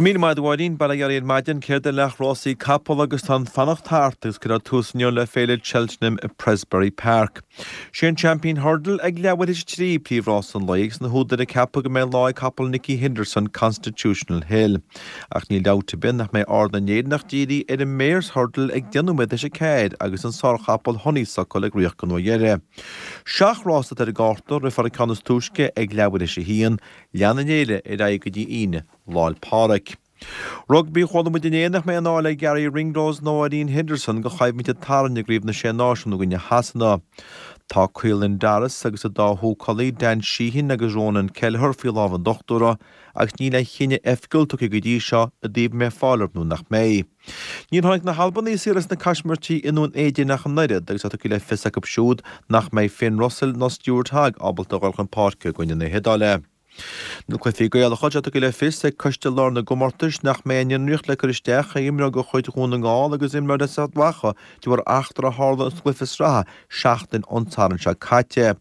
Míle maith agat a Mháirín, bail ó Dhia oraibh ar maidin, céard é leath rásaí capall agus tá an fanacht thart agus cuirfear tús inniu le féile Cheltenham i Prestbury Park. Sé an Champion Hurdle ag leathuair théis a 3 príomhrás an lae agus na húdair ag ceapadh go mbeidh lá ag capall Nicky Henderson Constitutional Hill. Ach níl dabht ar bith nach mbeidh aird na nÉireannach dírithe ar an Mares Hurdle ag 10 nóiméad théis a 4 agus an sárchapall Honeysuckle ag ritheacht don uair dheiridh. Seacht rás atá ar an gcárta, rithfear an ceann is túisce ag leathuair théis a haon, leanfaidh an fhéile ar aghaidh go dtí Aoine Lá 'le Pádraig. Rugbaí, Chuala muid inné nach mbeidh i ndán le Garry Ringrose nó Ian Henderson don choimhlint a tarraingíodh i gCraobh na Sé Náisiún i gcoinne Shasana. Tá Caelan Doris agus a dá húcálaí Dan Sheehan agus Ronan Kelleher faoi lámh an dochtúra agus níl aon chinneadh oifigiúil tugtha go dtí seo i dtaobh an mbeidh fáil orthu nó nach mbeidh. Níor tháinig na hAlbanaigh saor as na caismirtí i nDún Éideann ach an oiread agus tá tugtha le fios acu siúd nach mbeidh Finn Russell ná Stuart Hogg ábalta a dhul chun páirce i gcoinne na hIodáile. Na cluichí Gaelacha, tá tugtha le fios ag Coiste Láir na gComórtais nach mbeidh aon fhionraíocht le cur isteach ar imreoir de chuid Dhún na nGall agus imreoir as Ard Mhacha de bharr eachtra a tharla sa gcluiche sraithe seachtain ón Satharn seo caite.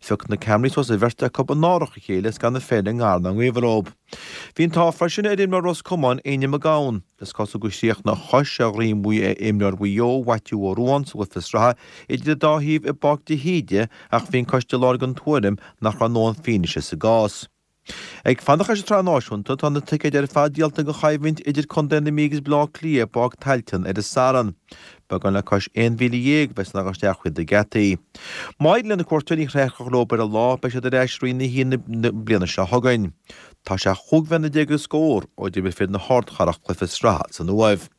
Phioc na ceamaraí suas an bheirt acu in árach a chéile is gan an pheil i ngar ná i ngaobhar dóibh. Bhí an t-ádh freisin ar imreoir Ros Comáin, Éinne Mac Gabhann. Is cosúil gur chríochnaigh a chois ar dhroim imreoir Mhaigh Eo, Mhaitiú Ó Ruadháin, sa gcluiche sraithe idir an dá thaobh i bPáirc de hÍde ach bhí an Coiste Láir den tuairim nach raibh a ndóthain fianaise sa gcás. Ag fanacht leis an tsraith náisiúnta, tá na ticéid ar fad díolta don choimhlint idir Contae na Mí agus Baile Átha Cliath i bPáirc Tailteann ar an Satharn. Beagán le cois 11,000 a bheas in ann a dhul isteach thríd na geataí. Má éiríonn le na cuairteoirí an chraobh a chrochadh leo ar an lá, beidh siad ar ais i Roinn 1 na bliana seo chugainn. Tá sé chúig bhliana déag agus scór ó d'imir fir na hardchathrach cluiche sraithe san Uaimh.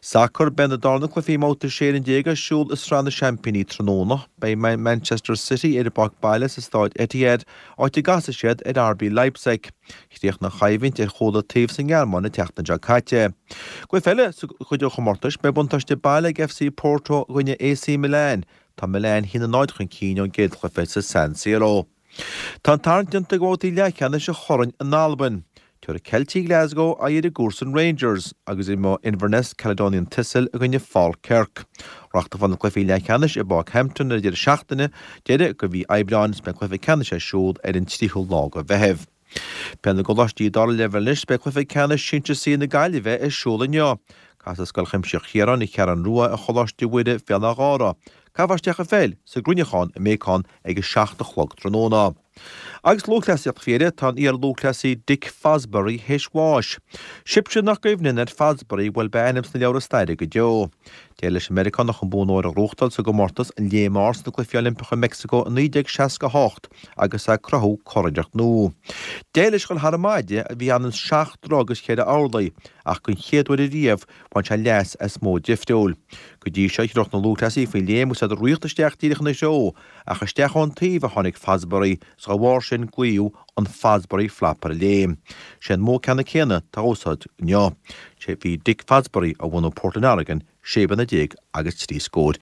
Sacar, Beidh na darna cluichí i mbabhta 16 fhoireann ar siúl i Sraith na Seaimpíní tráthnóna. Beidh Manchester City ar a bpáirc baile sa Stáid Etihad, áit a gcasfaidh siad ar RB Leipzig. Chríochnaigh an choimhlint ar chúl an taobh sa nGearmáin an tseachtain seo caite. Cluiche eile sa chuid den chomórtas, beidh buntáiste baile ag FC Porto i gcoinne AC Milan. Tá Milan 1-0 chun cinn ón gcéad chluiche sa San Siro. Tá an tarraingt déanta do bhabhtaí leathcheannais an Choirn in Albain. Tabharfaidh Ceiltigh Glasgow aghaidh ar a gcomharsain Rangers agus imreoidh Inverness Caledonian Thistle i gcoinne Falkirk. Reáchtálfar na cluichí leathcheannais i bPáirc Hampden ar an deireadh seachtaine deiridh de mhí Aibreáin is beidh cluiche ceannais ar siúl ar an tríú lá de Mheitheamh. Peil na gColáistí dara leibhéal anois, beidh cluiche ceannais Sinsir C na Gaillimhe ar siúl inniu. Casfaidh Scoil Chuimsitheach Chiaráin, An Cheathrú Rua, ar Choláiste Mhuire, Béal Átha Ghártha. Caithfear isteach an pheil sa gCruinneachán i mBéacán ag a 7 a chlog tráthnóna. Agus lúthchleasaíocht faoi dheireadh, tá an iar-lúthchleasaí Dick Fosbury théis bháis. Sibhse nach gcuimhníonn ar Fosbury, bhuel beidh a ainm sna leabhra staire go deo. D'éirigh leis an Meiriceánach an bonn óir a ghnóthachtáil sa gcomórtas an Léim Ard sna Cluichí Oilimpeacha i Meicsiceo i 1968 agus é ag cruthú curiarracht nua. D'éirigh leis dhul thar an maide a bhí ionann 7 dtroigh agus 4 orlaí ach den chéad uair ariamh Bhain sé leas as modh difriúil. Go dtí seo, thriúch na lúthchleasaithe faoin léim agus iad ag ritheacht isteach díreach ina threo, ach isteach ón taobh a tháinig Fosbury, is dá bharr sin glaodh an Fosbury Flop ar an léim. Sé an modh ceannann céanna atá á úsáid inniu. Sé bhí Dick Fosbury, ó bhunadh Portland Oregon, sé bliana déag agus trí scór.